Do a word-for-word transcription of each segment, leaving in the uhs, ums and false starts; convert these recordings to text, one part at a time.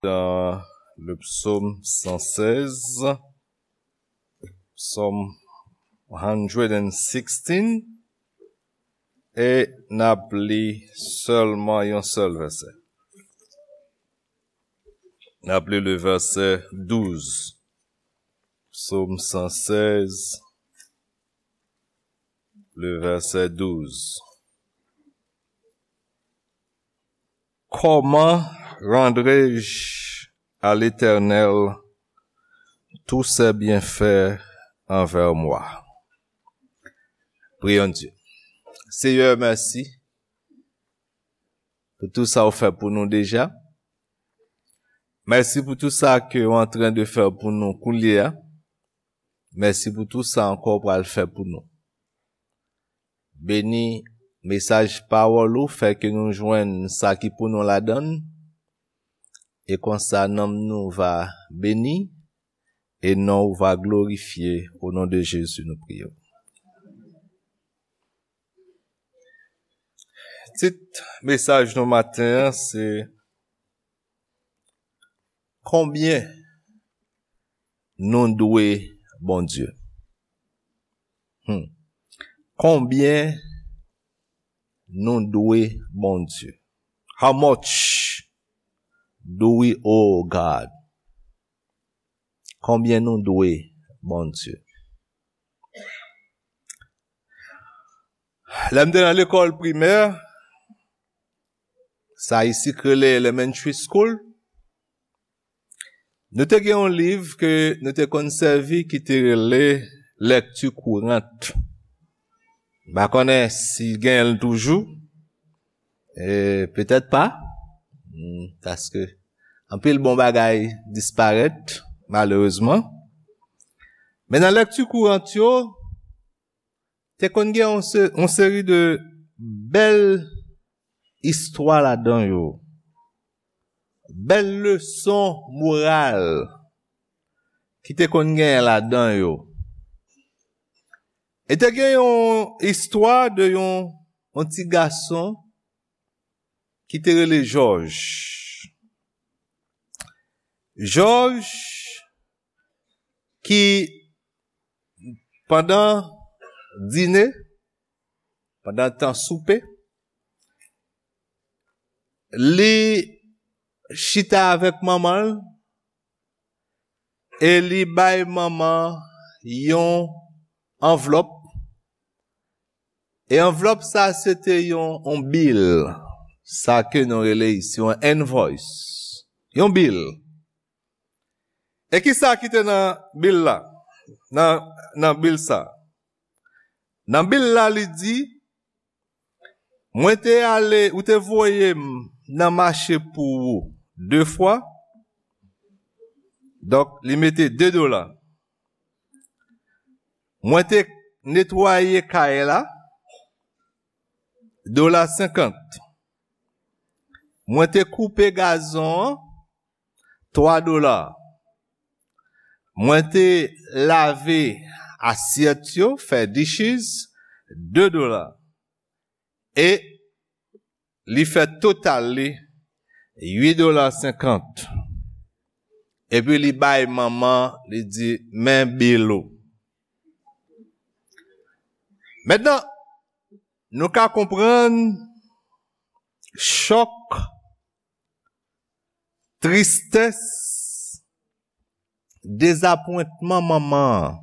dans le psaume cent seize, psaume one hundred sixteen, e n ap li sèlman yon sèl vèsè. N ap li le vèsè douz. Psaume cent seize, le vèsè douz. Comment rendrai-je à l'Éternel tous ses bienfaits envers moi? Prions Dieu. Seyè, mèsi pou tou sa ou fè pou nou deja. Mèsi pou tou sa ke ou antren de fè pou nou koulye a. Mèsi pou tou sa ankò ou pral fè pou nou. Beni mesaj pawòl ou, fè ke nou jwenn sa ki pou nou ladan l, e konsa nanm nou va beni, e non ou va glorifye. O non de Jezi nou priye w. Tit mesaj nou maten an se: Konbyen nou dwe Bondye? Hmm. Konbyen nou dwe Bondye? How much do we owe God? Konbyen nou dwe Bondye? Lè m te nan lekòl primè, sa isi k rele elementary school, nou te gen yon liv ke nou te konn sèvi ki te rele Lecture Courante. M pa konnen si genyen l toujou. E petèt pa. Hmm, paske anpil bon bagay disparèt, malerezman. Men nan Lecture Courante yo, te konn gen yon se-, yon seri de bèl istwa ladan yo. Bèl leson moral ki te konn genyen ladan yo. E te gen yon istwa de yon, yon ti gason ki te rele Jòj. Jòj ki pandan dine, pandan tan soupe, li chita avèk manman l e li bay manman yon anvlòp. E anvlòp sa se te yon, yon bil, sa ke nou rele isi yon invoice, yon bil. E ki sa ki te nan bil la? Nan, nan bil sa. Nan bil la, li di, mwen te ale, ou te voye m nan mache pou ou de fwa. Donk, li mete de dola. Mwen te netwaye kay la, dola senkant. Mwen te koupe gazon an, twa dola. Mwen te lave asyèt yo, fè dishes, de dola. E li fè total li uit dola senkant. Epi li bay manman, li di, men bil ou. Mentnan, nou ka konprann chòk, tristès, dezapwentman manman an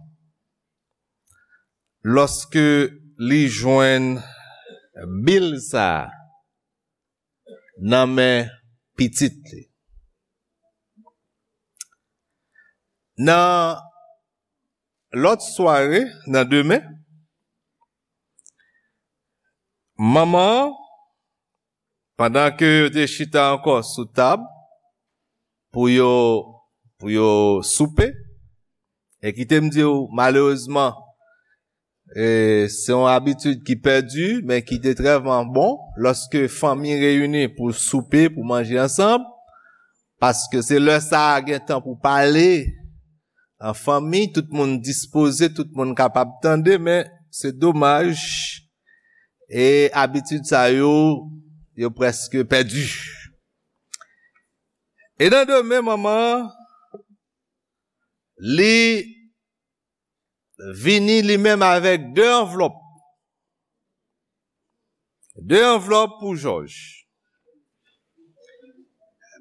lòske li jwenn bil sa a nan men pitit li. Nan lòt sware, nan demen, manman an, pandan ke yo te chita ankò sou tab pou yo, pou yo soupe, e kite m di w, malerezman, e, se yon abitid ki pèdi, men ki te trèman bon, lòske fanmi reyini pou soupe, pou manje ansanm, paske se lè sa a gen tan pou pale an fanmi, tout moun dispoze, tout moun kapab tande, men se domaj, e abitid sa yo, yo prèske pèdi. E nan demen, manman an, li vini li menm avèk de anvlòp. De anvlòp pou Jòj.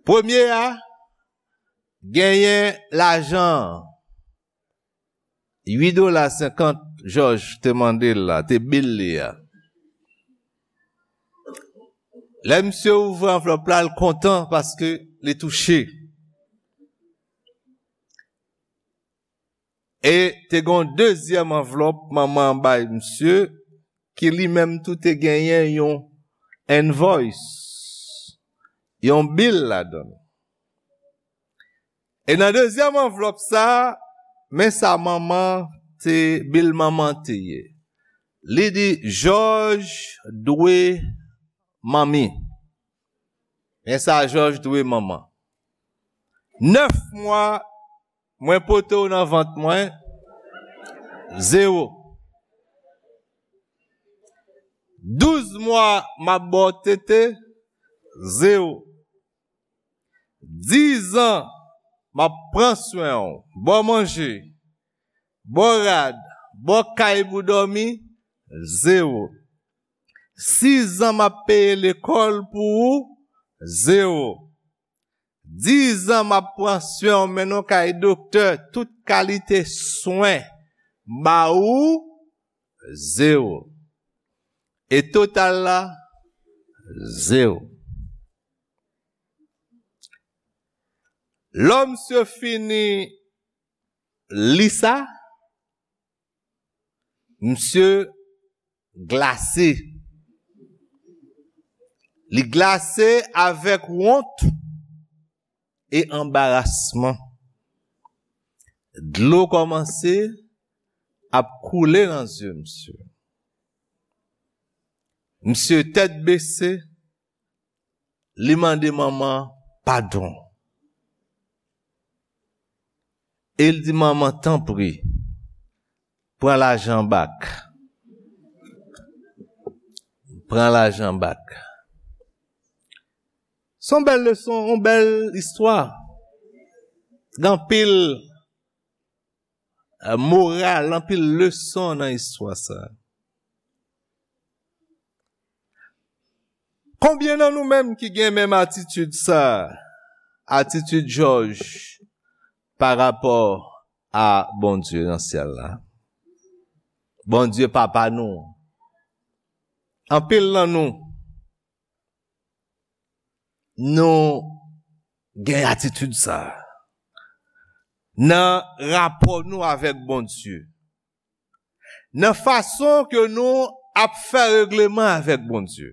Premye a, genyen lajan an. Uit dola senkant Jòj te mande l la, te bil li a. Lè misye ouvri anvlòp la, l kontan paske li touche. E te gen yon dezyèm anvlòp manman an bay misye, ki li menm tou te genyen yon invoice, yon bil ladan l. E nan dezyèm anvlòp sa, men sa manman te, bil manman te ye. Li di, Jòj dwe manmi. Men sa Jòj dwe manman. Nèf mwa, mwen pote w nan vant mwen, zewo. Douz mwa, m ap ba w tete, zewo. Diz an, m ap pran swen w, ba w manje, ba w rad, ba w kay pou dòmi, zewo. Sis an, m ap peye lekòl pou ou, zewo. Diz an, m ap pran swen w, mennen w kay doktè, tout kalite swen, ba ou, zewo. E total la, zewo. Lè misye fini li sa, misye glase. Li glase avèk wont e anbarasman. Dlo kòmanse ap koule nan zye misye. Misye tèt bese, li mande manman padon. E l di, "Manman, tanpri, pran lajan bak. Pran lajan bak." Se yon bèl leson, yon bèl istwa. Gen anpil, eh, moral, anpil leson nan istwa sa. Konbyen nan nou menm ki gen menm atitid sa, atitid Jòj pa rapò a Bondye nan syèl la? Bondye papa nou. Anpil nan nou, nou gen atitid sa nan rapò nou avèk Bondye. Nan fason ke nou ap fè regleman avèk Bondye.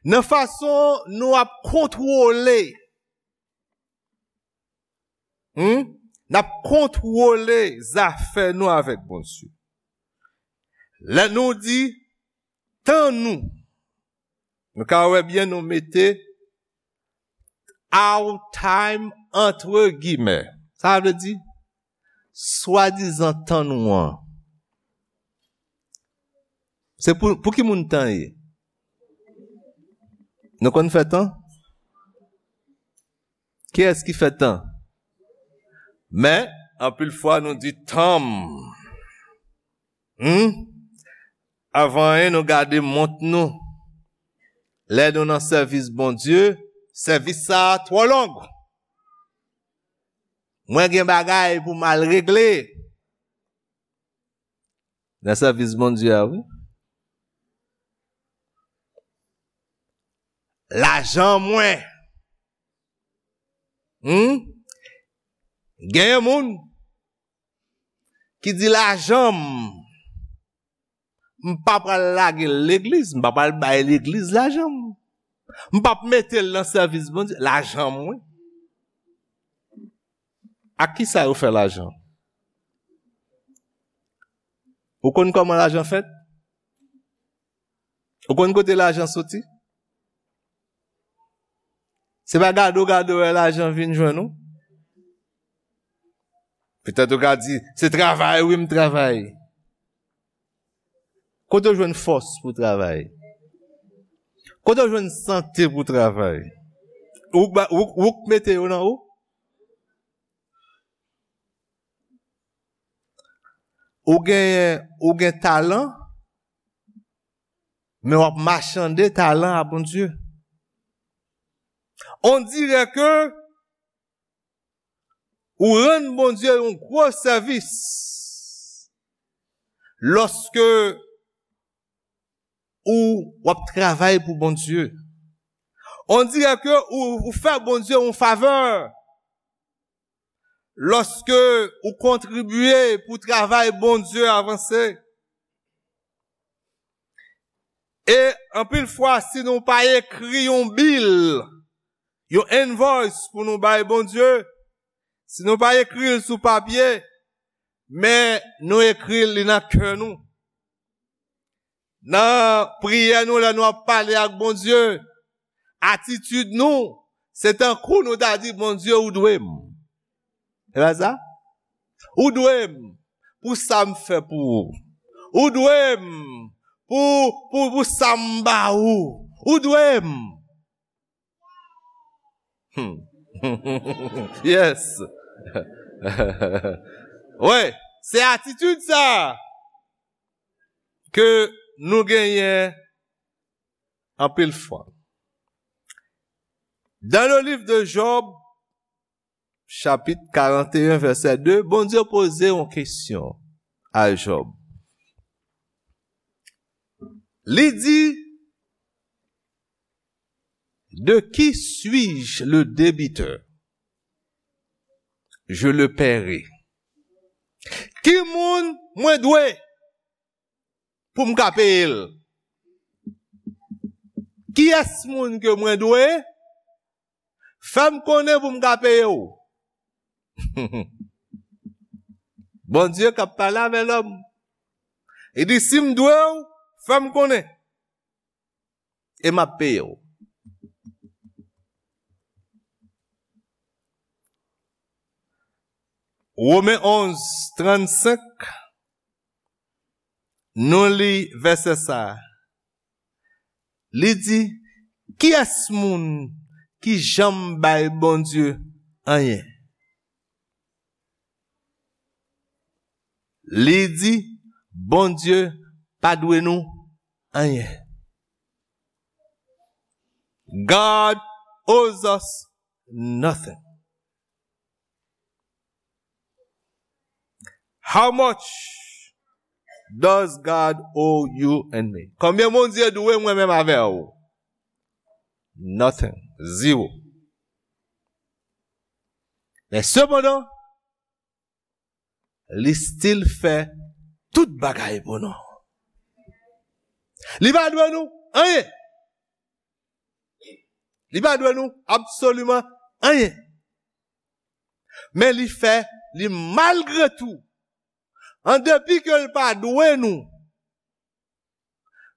Nan fason nou ap kontwole, hmm? N ap kontwole zafè nou avèk Bondye. Lè nou di, tan nou, nou ka wè byen, nou mete our time entre guillemets. Sa vle di, swadizan tan nou an. Se pou, pou ki moun tan ye? Nou konn fè tan? Kiyès ki fè tan? Men, anpil fwa nou di tan m. Hmm? Avan anyen, nou gade mont nou. Lè nou nan sèvis Bondye, sèvis sa a twò long. Mwen gen bagay pou m al regle. Nan sèvis Bondye a, wi. Lajan mwen. Hmm? Genyen moun ki di lajan m, m pa pral lage l legliz, m pa pral bay legliz lajan m. M p ap mete l nan sèvis Bondye, lajan m, wi. Ak ki sa yo fè lajan? Ou konn kòman lajan fèt? Ou konn kote lajan soti? Se pa gade w gade w wè lajan vin jwenn ou? Petèt ou ka di, "Se travay, wi, m travay." Kote w jwenn fòs pou travay? Kote w jwenn sante pou travay? Ou k ba- ou, ou k mete yo nan ou? Ou gen, ou gen talan, men w ap machande talan a Bondye. On dirait que ou rann Bondye yon gwo sèvis lòske ou w ap travay pou Bondye. On dirait que ou, ou fè Bondye yon favè lòske ou kontribye pou travay Bondye avanse. E anpil fwa, si nou pa ekri yon bil, yon invoice pou nou bay Bondye, si nou pa ekri l sou papye, men nou ekri l nan kè nou. Nan priyè nou, lè nou ap pale ak Bondye, atitid nou, se tankou nou ta di, "Bondye, ou dwe m." E pa sa? "Ou dwe m pou sa m fè pou ou. Ou dwe m pou, pou, pou sa m ba ou. Ou dwe m." Hmm. Yes. Wi, se atitid sa ke nou genyen anpil fwa. Dans le livre de Job, chapitre quarante et un, verset deux, Bondye poze yon kesyon a Job. Li di, "De qui suis-je le débiteur? Je le paierai." Ki moun mwen dwe pou m ka peye l? Kiyès moun ke mwen dwe? Fè m konnen pou m ka peye w. Bondye k ap pale avè lòm. Li di, "Si m dwe w, fè m konnen. E m ap peye w." Women onz, trannsenk, nou li vèsè sa a. Li di, "Kiyès moun ki janm bay Bondye anyen?" Li di, "Bondye pa dwe nou anyen." God owes us nothing. How much does God owe you and me? Konbyen Bondye dwe mwen menm avè w? Nothing. Zero. Men sepandan, li still fè tout bagay pou nou. Li pa dwe nou anyen. Li pa dwe nou absoliman anyen. Men li fè, li malgre tou, an depi ke l pa dwe nou,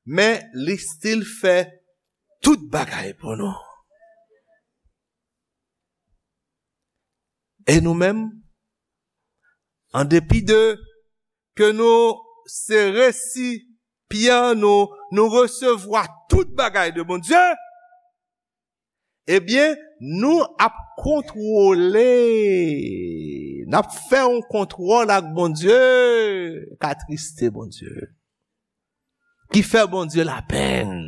men li still fè tout bagay pou nou. E nou menm, an depi de ke nou se resipyan, nou, nou resevwa tout bagay de Bondye, ebyen, nou ap kontwole, n ap fè yon kontwòl ak Bondye k atriste Bondye, ki fè Bondye lapenn.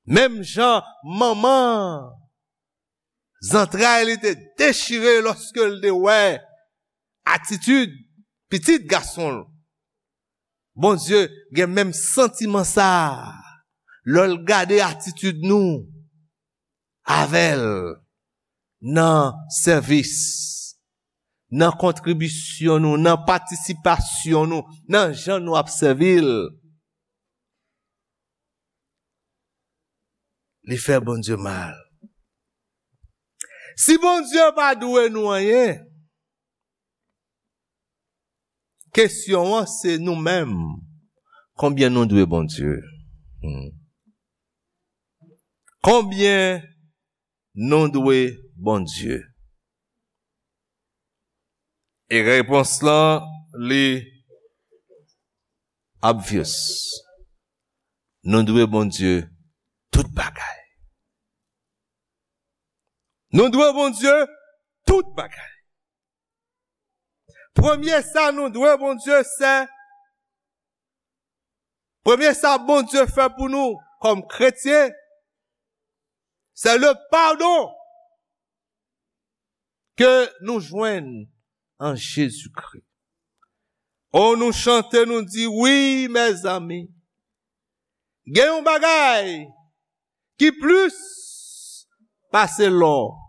Menm jan manman zantray li te dechire lòske l te wè atitid pitit gason l. Bondye gen menm santiman sa a lè l gade atitid nou avè l nan sèvis, nan kontribisyon nou, nan patisipasyon nou, nan jan nou ap sèvi l. Li fè Bondye mal. Si Bondye pa dwe nou anyen, kesyon an se nou menm. Konbyen nou dwe Bondye? Hmm. Konbyen nou dwe Bondye? E repons lan, li obvious. Nou dwe Bondye tout bagay. Nou dwe Bondye tout bagay. Premye sa nou dwe Bondye, se, premye sa Bondye fè pou nou kòm kretyen, se le padon ke nou jwenn an Jezikri. O, nou chante, nou di, wi, mezanmi, gen yon bagay ki plis pase lò.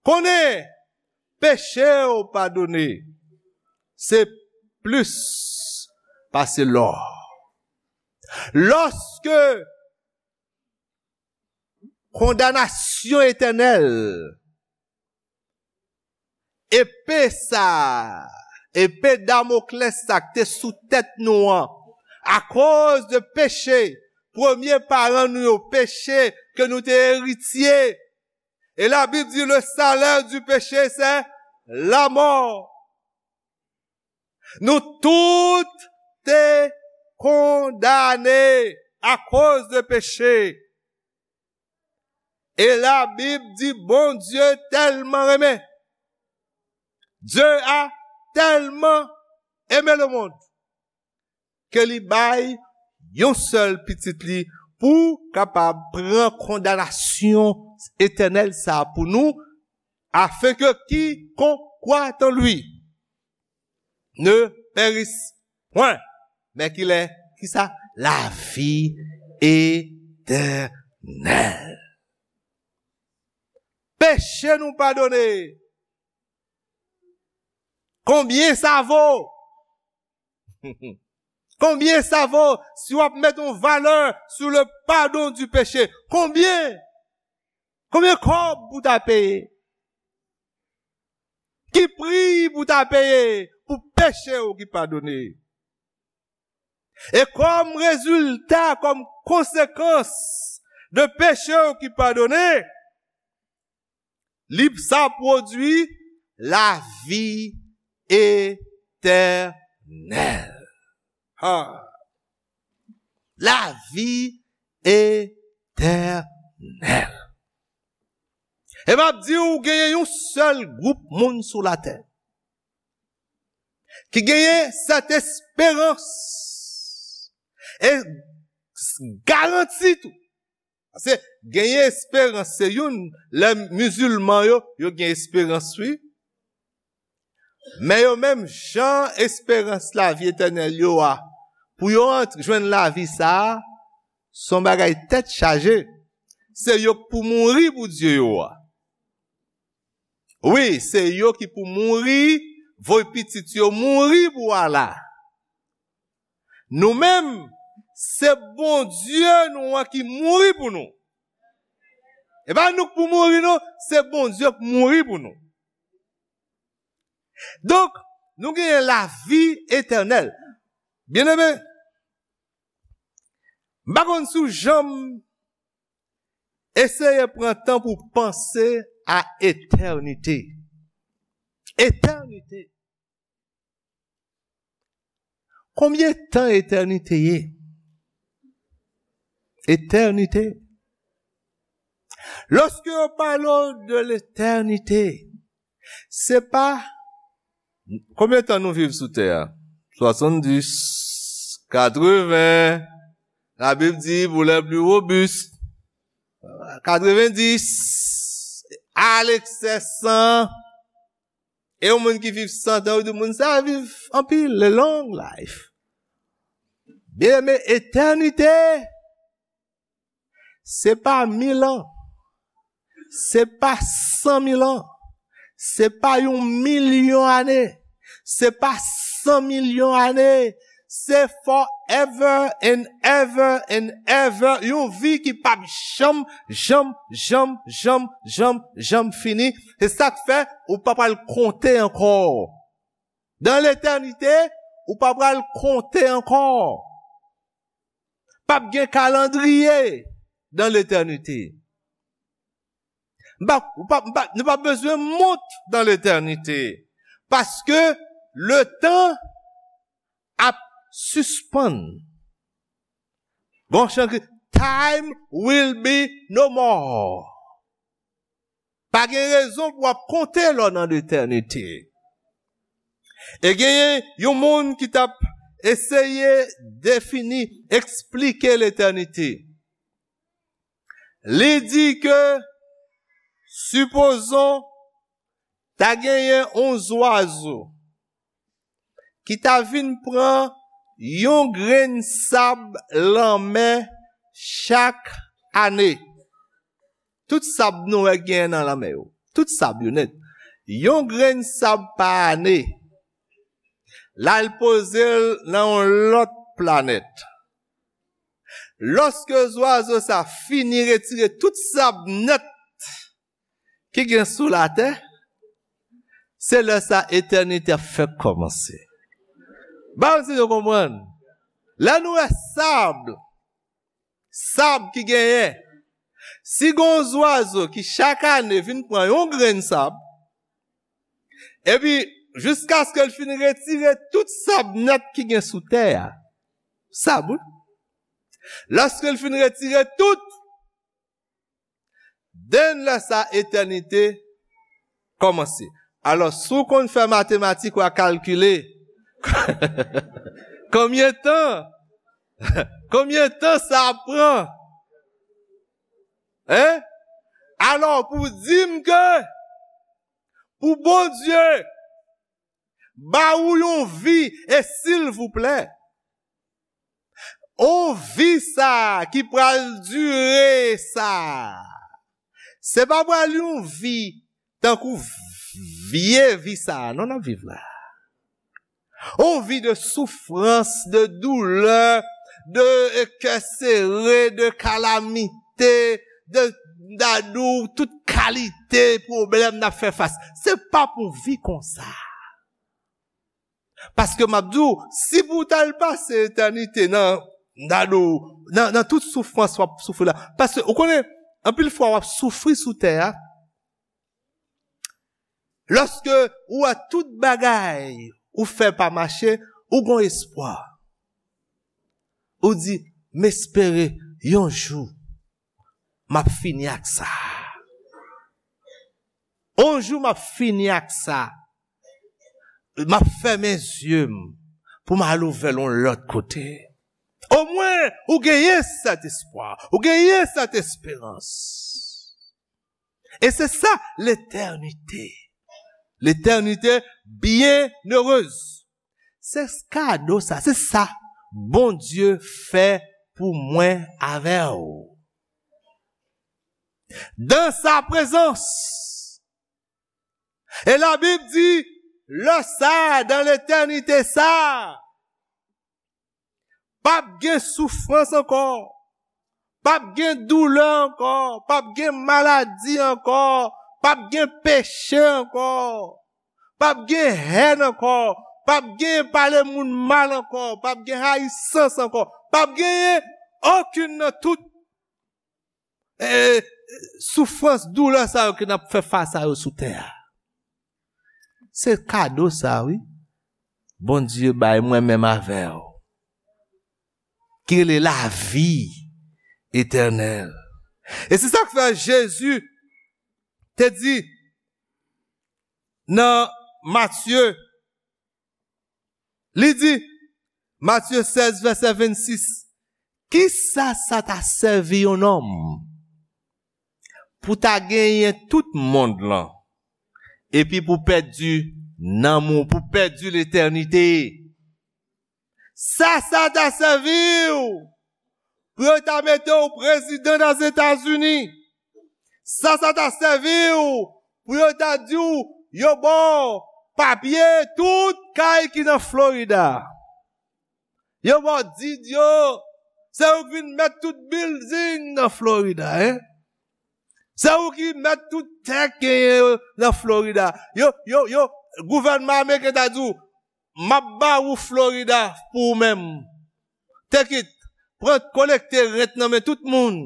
Konnen peche w padone, se plis pase lò. Lòske kondanasyon etènèl, epe sa, epe Damoklès sa k te sou tèt nou an, akoz de peche, premye paran nou yo, peche ke nou te eritye. E Labib di, le salaire du péché, c'est la mort. Nou tout te kondane akoz de peche. E Labib di, Bondye tèlman renmen. Dieu a tellement aimé le monde ke li bay yon sèl pitit li pou kapab pran kondanasyon etènèl sa a pou nou, afin que quiconque croit en lui ne périsse point, mais qu'il ait, kisa? La vie éternelle. Peche nou padone. Konbyen sa vo? Konbyen sa vo si w ap met yon valè sou le pardon du péché? Konbyen? Konbyen kòb pou ta peye? Ki pri pou ta peye pou peche w ki padone? E kòm rezilta, kòm konsekans de peche w ki padone, li sa pwodui lavi etènèl. Ha. Lavi etènèl. E m ap di w, genyen yon sèl gwoup moun sou latè ki genyen sèt esperans e garanti tou. Paske genyen esperans, se youn, lè mizilman yo, yo gen esperans, wi. Men yo menm, jan esperans lavi etènèl yo a, pou yo antre, jwenn lavi sa a, se yon bagay tèt chaje. Se yo k pou mouri pou Dye yo a. Wi, se yo ki pou mouri, voye pitit yo mouri pou Allah. Nou menm, se Bondye nou an ki mouri pou nou. E pa nou k pou mouri, non, se Bondye k mouri pou nou. Donk, nou genyen lavi etènèl. Byeneme, m pa konn si w janm eseye pran tan pou panse a etènite. Etènite. Konbyen tan etènite ye? Etènite. Lòske yo pale w de letènite, se pa konbyen tan nou viv sou tè a? Swasanndis, katreven, Labib di, pou lè pli wobis, katrevendis, alekse san. E yon moun ki viv san tan, yo di moun sa a viv anpil, le long life. Byeneme, etènite, se pa mil an, se pa san mil an, se pa yon milyon ane, se pa san milyon ane, se forever and ever and ever, yon vi ki p ap janm, janm, janm, janm, janm, janm fini. Se sa k fè ou pa pral konte ankò. Dan letènite, ou pa pral konte ankò. P ap gen kalandriye dan letènite. M pa, ou pa, m pa, nou pa bezwen mont dan letènite. Paske letan ap sispann. Bon, chan ki, time will be no more. Pa gen rezon pou w ap konte lè w nan letènite. E genyen yon moun ki t ap eseye defini, eksplike letènite. Li di ke, sipozon, ta genyen yon zwazo ki ta vin pran yon grenn sab lanmè chak ane. Tout sab nou wè genyen nan lanmè yo. Tout sab yo nèt. Yon grenn sab pa ane. L al poze l nan yon lòt planèt. Lòske zwazo sa fini retire tout sab nèt ki gen sou latè, se lè sa etènite ap fèk kòmanse. Ba m si nou konprann. Lè nou wè sab, sab ki genyen, si gen yon zwazo ki chak ane vin pran yon grenn sab, epi jiskaske l fin retire tout sab nèt ki gen sou tè a, sab, wi. Lòske l fin retire tout, den lè sa etènite kòmanse. Alò, si w konn fè matematik, w a kalkile konbyen tan, konbyen tan sa ap pran. Hein? Alò, pou di m ke pou Bondye ba ou yon vi, e silvouplè, yon vi sa ki pral dire sa, se pa pral yon vi tankou vye vi sa a non n ap viv la. Yon vi de soufrans, de doulè, de kè sere, de kalamite, de dadou, tout kalite pwoblèm n ap fè fas. Se pa pou vi konsa. Paske m ap di w, si pou w t al pase etènite nan, nan, nan, nan tout soufrans w ap soufri la. Paske, ou konnen, anpil fwa w ap soufri sou tè a, lòske ou wè tout bagay ou fè pa mache, ou gon espwa. Ou di, "M espere yon jou, m ap fini ak sa. Yon jou, m ap fini ak sa." M ap fèmen zye m pou m al ouvè l yon lòt kote. Omwen, ou genyen sèt espwa, ou genyen sèt esperans. E se sa, letènite. Letènite byennerez. Se kado sa, se sa Bondye fè pou mwen avè w. Dans sa présence. E Labib di, lè sa, dan letènite sa, p ap gen soufrans ankò, p ap gen doulè ankò, p ap gen maladi ankò, p ap gen peche ankò, p ap gen hèn ankò, p ap gen pale moun mal ankò, p ap gen rayisans ankò, p ap genyen okenn nan tout e, soufrans, doulè sa yo ke n ap fè fas a yo sou tè a. Se kado sa, wi. Bondye bay mwen menm avè w. Ki rele lavi etènèl. E se sa k fè Jezi te di nan Matye Li di, Matye sèz, vèsè vennsis, "Kisa sa ta sèvi yon nonm pou ta genyen tout mond lan, epi pou pèdi nanm ou, pou pèdi letènite? Sa sa ta sèvi w pou yo ta mete w prezidan Dèzetazini? Sa sa ta sèvi w pou yo ta di w yo ba w papye tout kay ki nan Florida? Yo ba w di yo, se ou ki vin mèt tout bilding nan Florida, en? Se ou ki mèt tout tè k genyen yo nan Florida. Yo, yo, yo, gouvènman ameriken ta di w, m ap ba ou Florida pou ou menm. Take it, pran, kolekte rent nan men tout moun."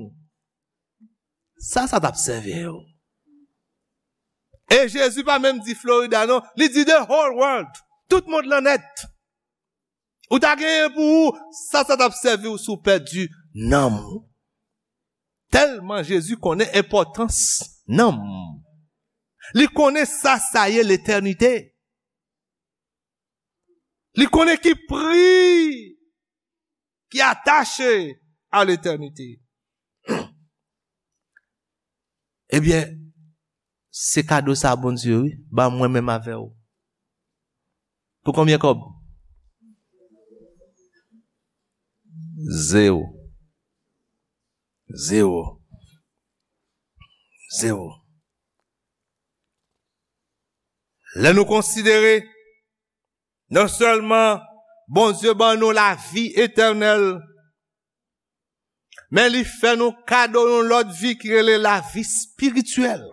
Sa, sa t ap sèvi yo. E Jezi pa menm di Florida, non. Li di the whole world. Tout mond lan nèt. Ou ta genyen pou ou, sa, sa t ap sèvi w si w pèdi nanm ou. Tèlman Jezi konnen enpòtans nanm. Li konnen sa sa ye letènite. Li konnen ki pri ki atache a letènite. Ebyen, se kado sa Bondye, wi, ba mwen menm avè w. Pou konbyen kòb? Zewo. Zewo. Zewo. Lè nou konsidere, non sèlman Bondye ban nou lavi etènèl, men li fè nou kado yon lòt vi ki rele lavi espirityèl.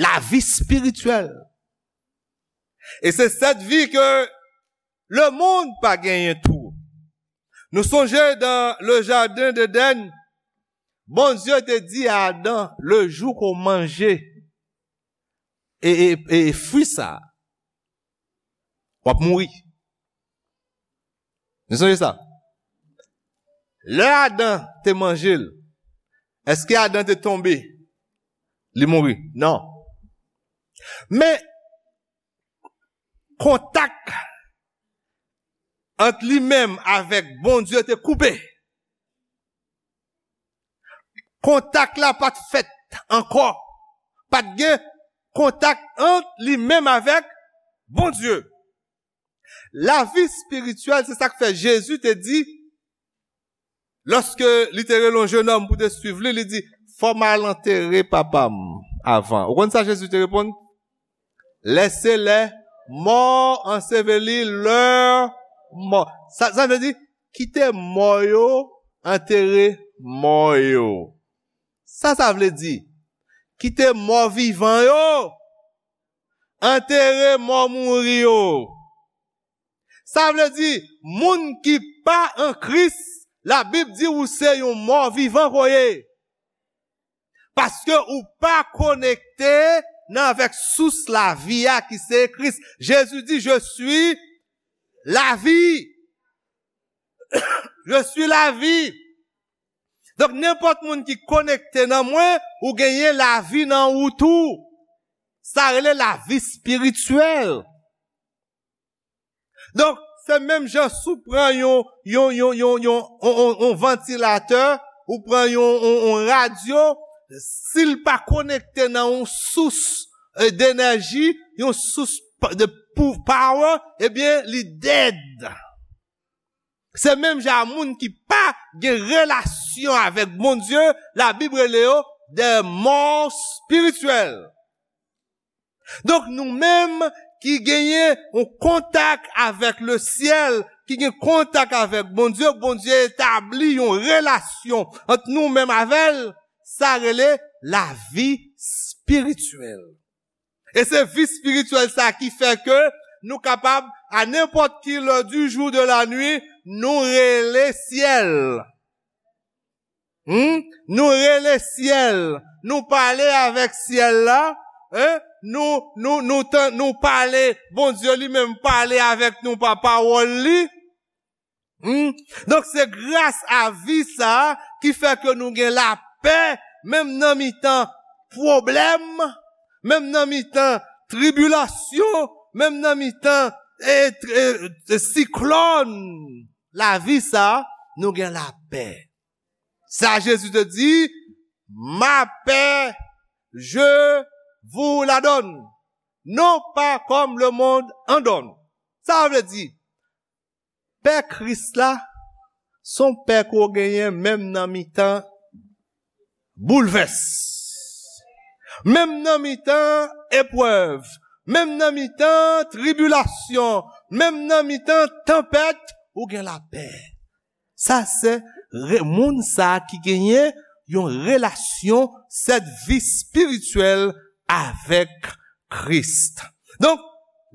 Lavi espirityèl. E se sèt vi ke lemonn pa genyen tou. Nou sonje dan le jaden d'Eden, Bondye te di a Adan, le jou ke w manje e, e, e fwi sa, w ap mouri. Nou sonje sa? Lè Adan te manje l, èske Adan te tonbe? Li mouri? Non. Men, kontak ant li menm avèk Bondye te koupe. Kontak la pa t fèt ankò. Pa t gen kontak ant li menm avèk Bondye. Lavi espirityèl, se sa k fè Jezi te di, lòske li te rele yon jenòm pou te swiv li, li di, fò m al antere papa m avan. Ou konn sa Jezi te reponn? Laissez les morts ensevelir leurs morts. Sa, sa vle di, kite mò yo antere mò yo. Sa sa vle di? Kite mò vivan yo antere mò mouri yo. Sa vle di, moun ki pa an Kris, Labib di ou se yon mò vivan ke w ye. Paske ou pa konekte nan avèk sous lavi a ki se Kris. Jezi di, je suis la vie. Je suis la vie. Donk, nenpòt moun ki konekte nan mwen, ou genyen lavi nan ou tou. Sa rele lavi espirityèl. Donk, se menm jan si w pran yon, yon, yon, yon, yon, yon, yon, yon vantilatè, ou pran yon, yon, yon radyo, si l pa konekte nan yon sous, eh, denèji, yon sous pa, de pou, power, ebyen, li dead. Se menm jan moun ki pa gen relasyon avèk Bondye, Labib rele yo des morts spirituels. Donk, nou menm ki genyen yon kontak avèk le syèl, ki gen kontak avèk Bondye, Bondye etabli yon relasyon ant nou menm avè l, sa rele lavi espirityèl. E se vi espirityèl sa ki fè ke nou kapab, a nenpòt ki lè du jour de la nuit, nou rele syèl. Hmm? Nou rele syèl, nou pale avèk syèl la, hein? Nou, nou, nou, tan, nou pale, Bondye li menm pale avèk nou pa pawòl li. Hmm? Donk, se gras a vi sa a ki fè ke nou gen lapè, menm nan mitan pwoblèm, menm nan mitan tribilasyon, menm nan mitan, e, e, e, siklòn. Lavi sa a, nou gen lapè. Sa Jezi te di, ma paix, je vous la donne, non pas comme le monde en donne. Sa vle di, pè Kris la, se yon pè ke w genyen menm nan mitan boulvès. Menm nan mitan eprèv, menm nan mitan tribilasyon, menm nan mitan tanpèt, ou gen lapè. Sa se re-, moun sa ki genyen yon relasyon, sèt vi espirityèl avèk Kris. Donk,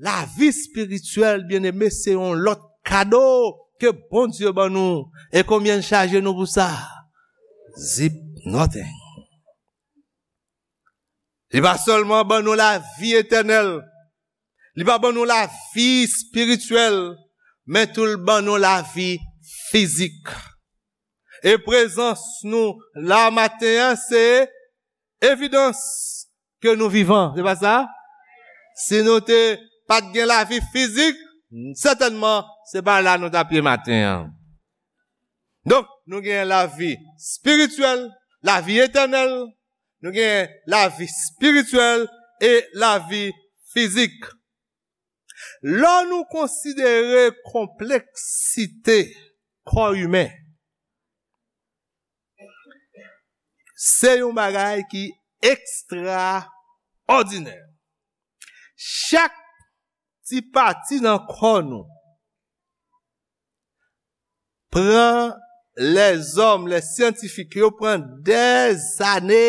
lavi espirityèl, byeneme, se yon lòt kado ke Bondye ban nou. E konbyen l chaje nou pou sa? Zip nothing. Li pa sèlman ban nou lavi etènèl, li pa ban nou lavi espirityèl, men tou l ban nou lavi fizik. E prezans nou la maten an, se evidans ke nou vivan, se pa sa? Si nou te pa t gen lavi fizik, sètènman, se pa la nou t ap ye maten an. Donk, nou gen lavi espirityèl, lavi etènèl, nou gen lavi espirityèl e lavi fizik. Lè nou konsidere konpleksite kò imen, se yon bagay ki ekstraòdinè. Chak ti pati nan kò nou pran lèzòm, lè syantifik yo pran dèzane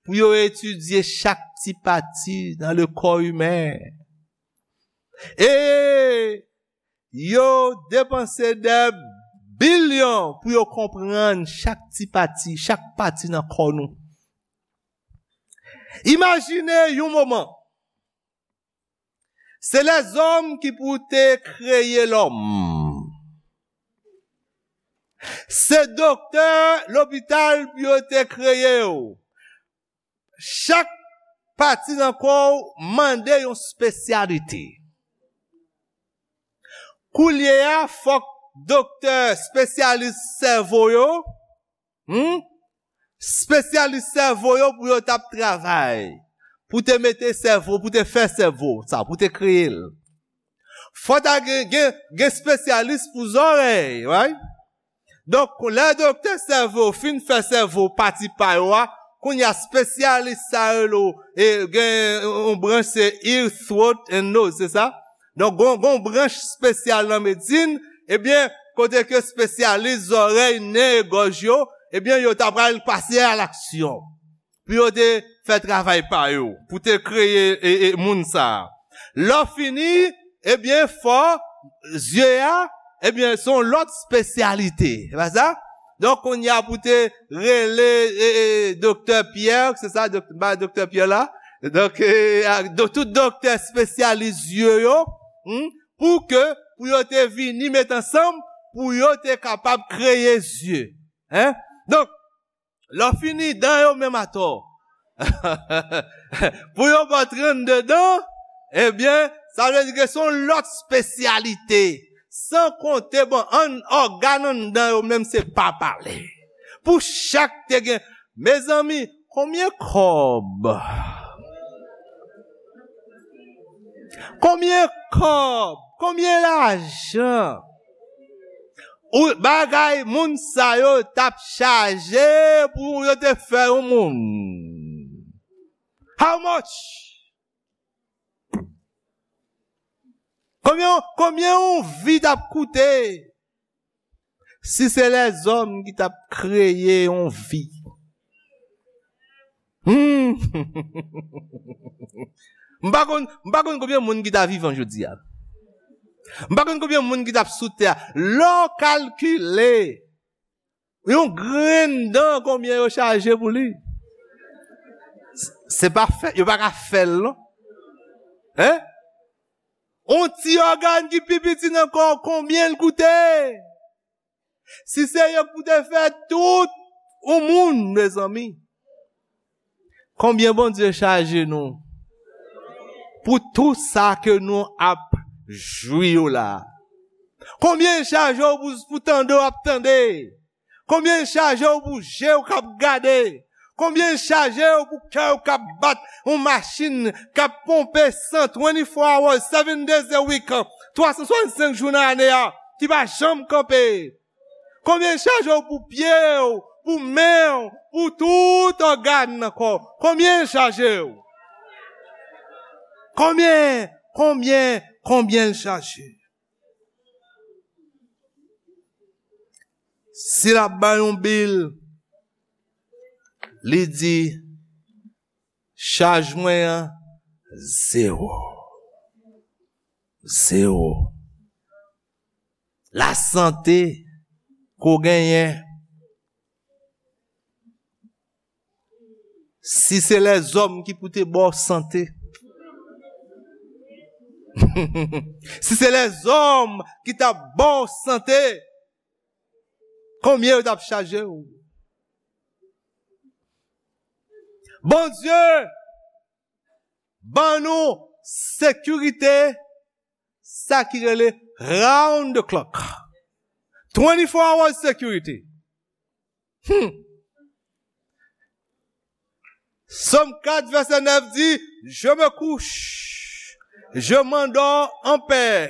pou yo etidye chak ti pati nan le kò imen. E yo depanse dè bilyon pou yo konprann chak ti pati, chak pati nan kò nou. Imajine yon moman, se lèzòm ki pou te kreye lòm. Se doktè lopital pou yo te kreye w. Chak pati nan kò w mande yon espesyalite. Koulye a, fòk doktè espesyalis sèvo yo, hmm? Espesyalis sèvo yo pou yo t ap travay, pou te mete sèvo, pou te fè sèvo sa, pou te kreye l. Fò ta gen, gen, gen espesyalis pou zòrèy, right? Donk, lè doktè sèvo fin fè sèvo pati pa yo a, kounye a espesyalis sa yo rele w, e gen yon branch se ear, throat and nose, se sa? Donk, gon, gon branch espesyal nan medsin, ebyen, kote ke espesyalis zòrèy, nen e gòj yo, ebyen, yo ta pral pase a laksyon pou yo te fè travay pa yo, pou te kreye e, e, moun sa a. Lè w fini, ebyen, fò zye a, ebyen, se yon lòt espesyalite. Se pa sa? Donk, kounye a pou te rele e, e, doktè Pyè, se sa, dok, ba doktè Pyè la? Donk, e, a, do, tout doktè espesyalis zye yo, hmm, pou ke, pou yo te vini met ansanm, pou yo te kapab kreye zye. Hein? Donk, lè w fini dan yo menm atò, pou yo ba w trannde dan, ebyen, sa vle di ke se yon lòt espesyalite. San konte, bon, an, ògàn anndan yo menm se pa pale. Pou chak te gen, mezanmi, konbyen kòb? Konbyen kòb? Konbyen lajan? Ou, bagay moun sa yo t ap chaje pou yo te fè yon moun. How much? Konbyen, konbyen yon vi t ap koute? Si se lèzòm ki t ap kreye yon vi. Hmm. M pa konn, m pa konn konbyen moun ki ta vivan jodi a. M pa konn konbyen moun ki t ap sou tè a. Lè w kalkile, yon grenn dan konbyen yo chaje pou li? S, se pa fè, yo pa ka fè l, non. Hein? On ti ògàn ki pi piti nan kò w, konbyen l koute? Si se yo k pou te fè tout yon moun, mezanmi, konbyen Bondye chaje nou pou tou sa ke nou ap jwi yo la? Konbyen l chaje w pou, pou tande w ap tande? Konbyen l chaje w pou je w k ap gade? Konbyen l chaje w pou kè w k ap bat, yon machin k ap ponpe san, twenty-four hours, seven days a week, twa san swasannsenk jou nan ane a, ki pa janm kanpe? Konbyen l chaje w pou pye w, pou men w, pou tout ògàn nan kò w? Konbyen l chaje w? Konbyen, konbyen, konbyen l chaje? Si l ap bay yon bil, li di, chaj mwen an, zewo. Zewo. Lasante ke w genyen, si se lèzòm ki pou te ba w sante, si se lèzòm ki t ap ba w sante, konbyen yo t ap chaje w? Bondye ban nou sekirite, sa ki rele round the clock. Twenty-four hours security. Hmm. Sòm kat vèsè nèf di, je me couche, je m'endors en paix,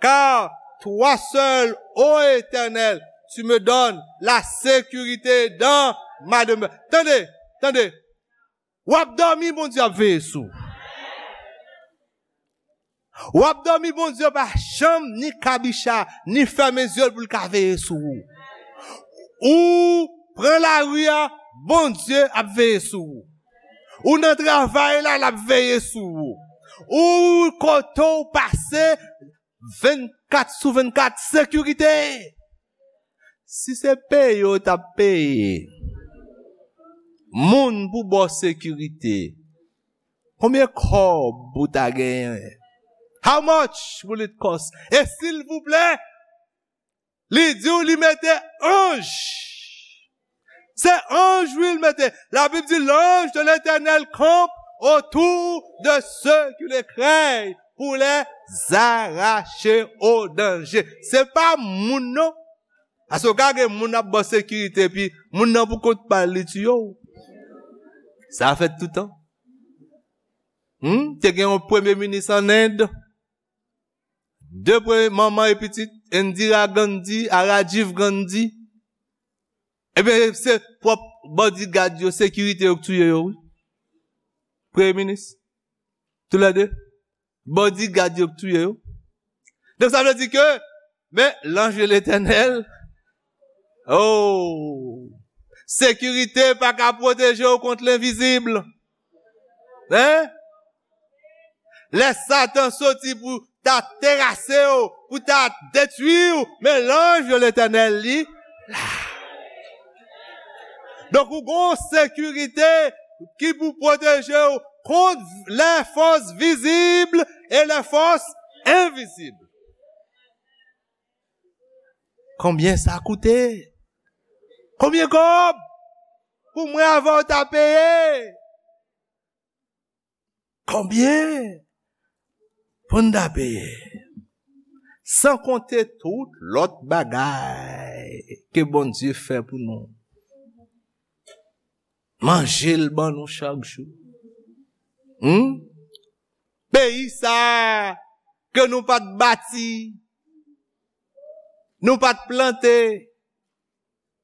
car toi seul, ô Éternel, tu me donnes la sécurité dans ma demeure. Tande, tande. W ap dòmi, Bondye ap veye sou ou. W ap dòmi, Bondye pa janm ni kabicha, ni fèmen zye l pou l ka veye sou ou. Ou pran lari a, Bondye ap veye sou ou. Ou nan travay la, l ap veye sou ou. Ou kote w pase, vennkat sou vennkat, sekirite. Si se peye w t ap peye moun pou ba w sekirite, konbyen kòb ou ta genyen? How much will it cost? E silvouplè, li di w li mete anj. Se anj, wi, l mete. Labib di, l'ange de l'Éternel campe autour de ceux qui le craignent pour les arracher au danger. Se pa moun, non. Paske w ka gen moun ap ba w sekirite, epi moun nan pou kont pa l, li tiye w. Sa fèt toutan. Hmm? Te gen yon premye minis an End. De premye manman e pitit, Indira Gandhi a Rajiv Gandhi. Ebyen, se pwòp bodyguard yo, sekirite yo k touye yo, wi. Premye minis. Toulède. Bodyguard yo k touye yo. Donk, sa vle di ke, men, l'ange de l'Éternel, oh, sekirite pa ka pwoteje w kont lenvizib. Hein? Lè Satan soti pou ta terase w, pou ta detwi w, men l'ange de l'Éternel, li la. Donk, ou gon sekirite ki pou pwoteje w kont les forces visibles et les forces invisibles. Konbyen sa koute? Konbyen kòb pou mwen avè w ta peye? Konbyen pou n ta peye? San konte tout lòt bagay ke Bondye fè pou nou. Manje l ban nou chak jou. Hmm? Peyi sa a ke nou pa t bati, nou pa t plante,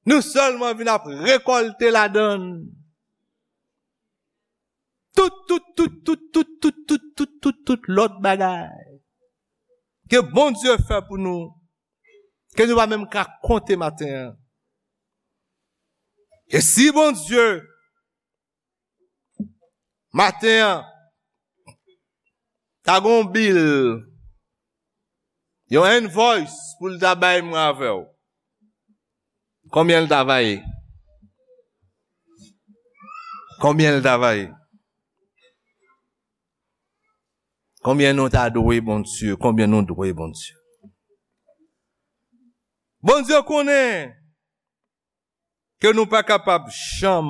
nou sèlman vin ap rekòlte ladan l. Tout, tout, tout lòt bagay ke Bondye fè pou nou, ke nou pa menm ka konte maten an. E si Bondye, maten an, ta gon bil, yon invoice pou l ta bay mwen avè w, konbyen l ta va ye? Konbyen l ta va ye? Konbyen nou ta dwe Bondye? Konbyen nou dwe Bondye? Bondye konnen ke nou pa kapab janm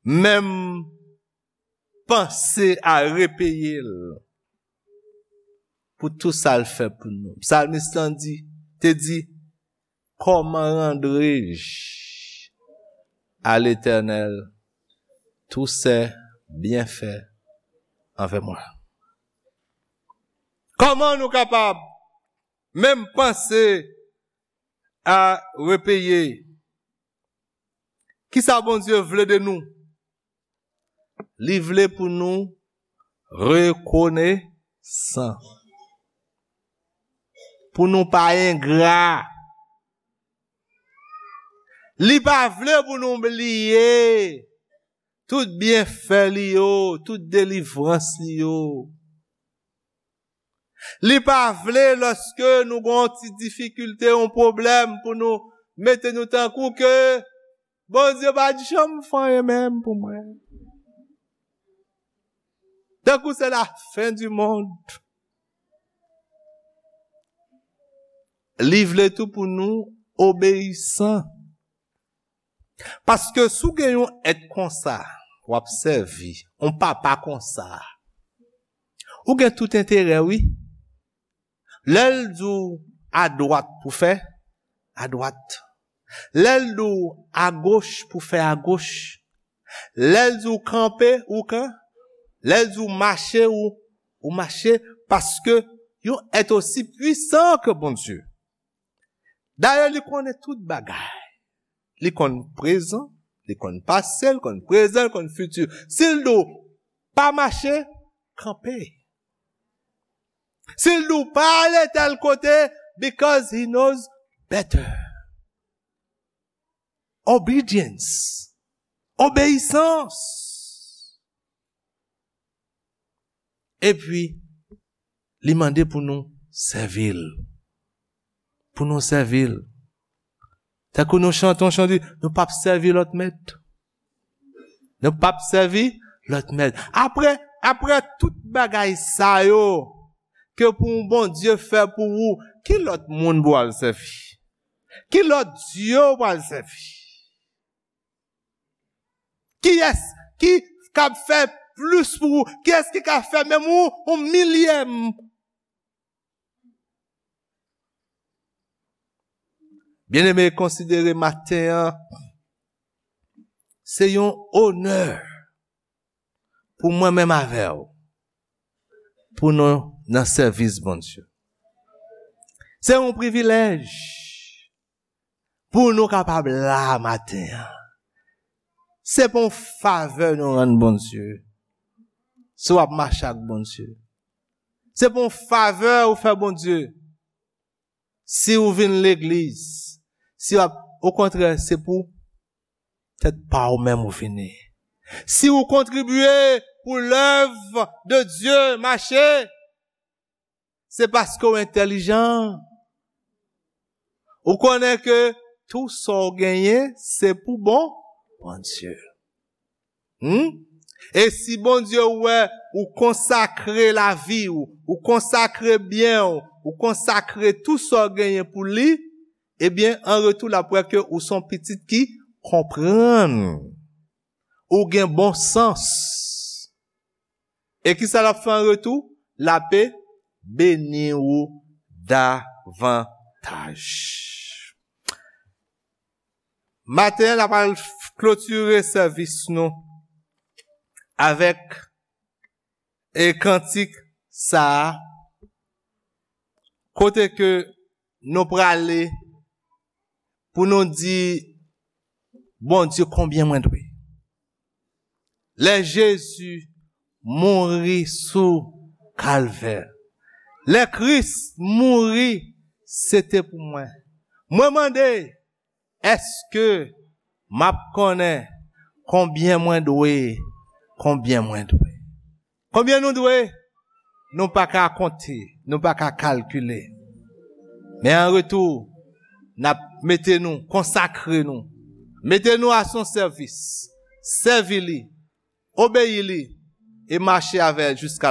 menm panse a repeye l pou tou sa l fè pou nou. Psalmiste lan di, te di, comment rendrai-je à l'Éternel tous ses bienfaits envers moi? Kòman nou kapab menm panse a repeye? Kisa Bondye vle de nou? Li vle pou nou rekonesan, pou nou pa engra. Li pa vle pou nou bliye tout byenfè li yo, tout delivrans li yo. Li pa vle lòske nou gon ti difikilte, yon pwoblèm pou nou mete nou tankou ke Bondye pa t janm fè anyen menm pou mwen. Tankou se la fen di monn. Li vle tou pou nou obeyisan. Paske si w gen yon èt konsa, w ap sèvi yon papa konsa, ou gen tout enterè, wi. Lè l di w adwat pou fè, adwat. Lè l di w agoch pou fè agoch. Lè l di w kanpe, ou kan. Lè l di w mache, ou, ou mache. Paske yon èt osi pwisan ke Bondye. Dayè, li konnen tout bagay. Li konn prezan, li konn pase, li konn prezan, li konn fiti. Si l di w pa mache, kanpe. Si l di w pa ale tèl kote, because he knows better. Obedience. Obeyisans. Epi, li mande pou nou sèvi l. Pou nou sèvi l. Tankou nou chante yon chan, di, nou p ap sèvi lòt mèt. Nou p ap sèvi lòt mèt. Apre, apre tout bagay sa yo, ke pou yon Bondye fè pou ou, ki lòt moun pou al sèvi? Ki lòt dye ou pral sèvi? Kiyès ki kab fè plis pou ou? Kiyès ki ka fè menm ou, yon milyèm? Byeneme, konsidere maten an, se yon onè pou mwen menm avè w, pou nou nan sèvis Bondye. Se yon privilèj pou nou kapab la maten an. Se pa yon favè nou rann Bondye. Si w ap mache ak Bondye. Se pa yon favè ou fè Bondye. Si ou vin legliz, si w ap, okontrè, se pou tèt pa ou menm ou vini. Si ou kontribye pou lèv de Dye mache, se paske w entèlijan. Ou konnen ke tou sa w genyen, se pou bon Bondye. Hmm? E si Bondye wè ou konsakre lavi w, ou konsakre byen w, ou konsakre tou sa w genyen pou li, ebyen, an retou, l ap wè ke ou se yon pitit ki konprann. Ou gen bon sans. E kisa l ap fè an retou? L ape beni ou davantaj. Maten an, n ap al klotire sèvis nou avèk e kantik sa a, kote ke nou prale pou nou di Bondye konbyen mwen dwe. Lè Jezi mouri sou Kalvè, lè Kris mouri, se te pou mwen. Mwen mande, èske m ap konnen konbyen mwen dwe? Konbyen mwen dwe? Konbyen nou dwe? Nou pa ka konte, nou pa ka kalkile. Men an retou, n ap mete nou, konsakre nou, mete nou a son sèvis, sèvi li, obeyi li, e mache avè l jiska la.